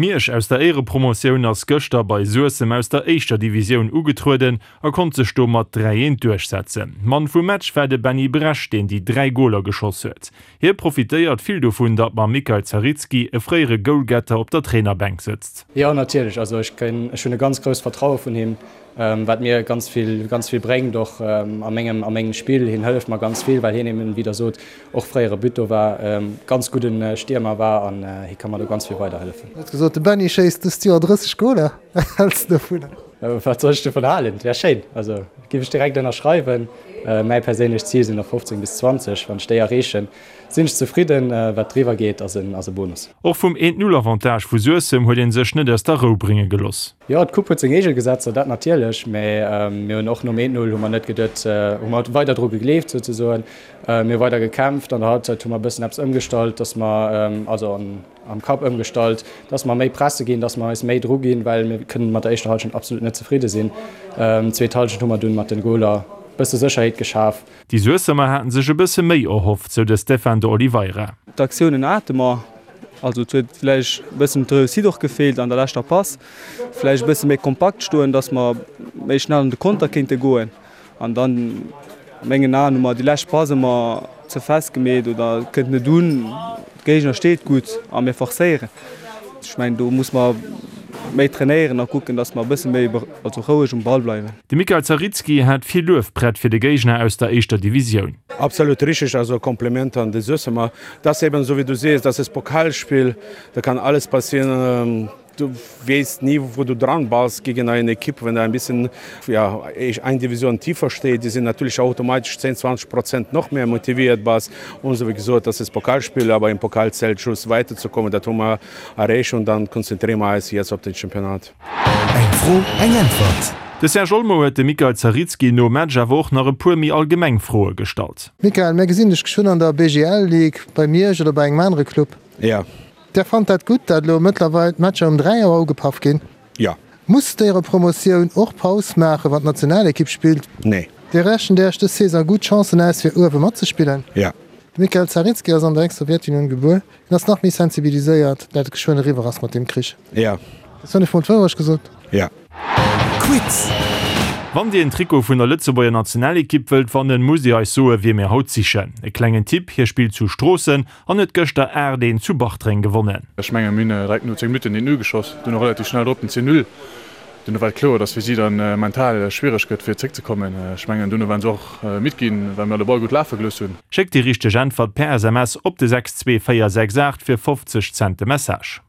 Miersch aus der Éierepromotioun ass gëschter bei Suessem aus der éischter Divisioun ugetrueden a konnt sech do mat 3, 1 duerchsetzen. Mann vum Match war de Benny Bresch, deen déi 3 Goler geschoss huet. Hie profitéiert vill dovun, datt mam Mikael Zaritski e fréiere Goalgetter op der Trainerbänk sëtzt. Jo natierlech, also ech ech hunn e ganz grousst Vertraue vun him, wat mir ganz vill ganz vill bréngt och a mengem a mengem Spill. Hien hëlleft mer ganz vill, well hien eben, wéi der sot, och fréiere Buteur war, ganz gudden Stiermer war an hie ka mer do ganz vill weiderhëllefen. Huet gesot, de Benny schéisst dëst Joer 30 Goler. Wat häls de dovun? Wat soll ech dovun halen? Et wär schéin, also giff ech direkt ënnerschreiwen. Mäi perséinlecht Zil sinn der 15 bis 20, wann ech déi erreechen, sinn ech zefridden. Wat driwwer geet, ass e Bonus. Och vum Eent-Null-Avantage vu Suessem huet ee sech net aus der Rou brénge geloss. Jo, d'Coupe huet seng eege Gesetzer, dat natierlech, mä mir hunn och nom 1-0 hu mer net geduet, hu mer weider dru gegleeft souzesoen. Mir hu weider gekämpft. An der Halbzeit hu mer e bëssen eppes ëmgestallt, dass mer, also am Kapp ëmgestallt, dass mer méi presse ginn, dass mer eis méi dru ginn, well mir kënnen mat der éischter Halschent absolut net zefridde sinn. Zweet Halschent hu mer dunn mat den Goler e bësse Sécherheet geschaf. Déi Suessemer haten sech e bësse méi erhofft, sou de Stefan de Oliveira. D'Aktiounen hate mer, also et huet vläicht e bëssen d'Reussite och gefeelt an der leschter Pass. Vläicht e bësse méi kompakt stoen, dass mer méi schnell an de Konter kéinte goen. An dann, a mengen Aen, hu mer déi lescht Pass ëmmer ze fest gemeet oder et kënnt net un. De Géigner steet gutt a mir forcéieren. Ech mengen, do muss mer méi trainéieren a kucken, dass mer e bësse méi also roueg um Ball bleiwen. De Mikael Zaritski hat vill Luef prett fir de Géigner aus der éischter Divisioun. Absolut richtig, also Kompliment an de Suessemer. Das eben, so wie du siehst, das ist Pokalspiel, da kann alles passieren. Du weess nie, wo du dran bass gegen eine Equipe, wenn du ein bisschen, ja, eng Division tiefer steht, die sind natürlich automatisch 10, 20 Prozent noch mehr motiviert bass und so. Wie gesot, das ist Pokalspiel, aber im Pokal zählt just weiterzukommen, dat hu mer erreecht und dann konzentrieren wir eis jetzt op den Championnat. Eng Fro, eng Äntwert. De Serge Olmo huet dem Mikael Zaritski nom Match awer och nach e puer méi allgemeng Froe gestallt. Mikael, mir gesinn dech geschwënn an der BGL Ligue bei Miersch oder bei engem anere Club. Ja. Där fannt dat gutt, dat elo mëttlerweil d'Matcher um 3 Auer ugepaff ginn? Ja. Muss d'Éierepromotioun och Paus maachen, wann d'Nationalekipp spillt? Nee. Dir rechent Äech dës Saison gutt Chancen aus, fir uewe matzespillen? Ja. De Mikhail Zaritski ass an der Ex-Sowjetunioun gebuer. Hien ass nach méi sensibiliséiert, dat et geschwënn eriwwer ass mat deem Krich. Ja. Hues du net mol d'Wourecht gesot? Ja. Quiz! Wann Dir en Trikot vun der Lëtzebuerger Nationalekipp wëllt wannen, musst Dir eis soe wie mir haut sichen. E klengen Tipp, Hie spillt zu Stroossen an huet gëschter 8, 1 zu Bartreng gewonnen. Ech mengen mir hunn direkt no 10 Minutten den 1-0 geschoss, dunn och relativ schnell drop den 10-0. Duerno war et kloer, dass fir si dann mental schwiereg gëtt fir zréckzekommen. Ech mengen duerno waren se och midd ginn, well mir de Ball gutt lafe gelooss hunn. Schéckt déi richteg Äntwert per SMS op de 62468 fir 50 Cent de Message.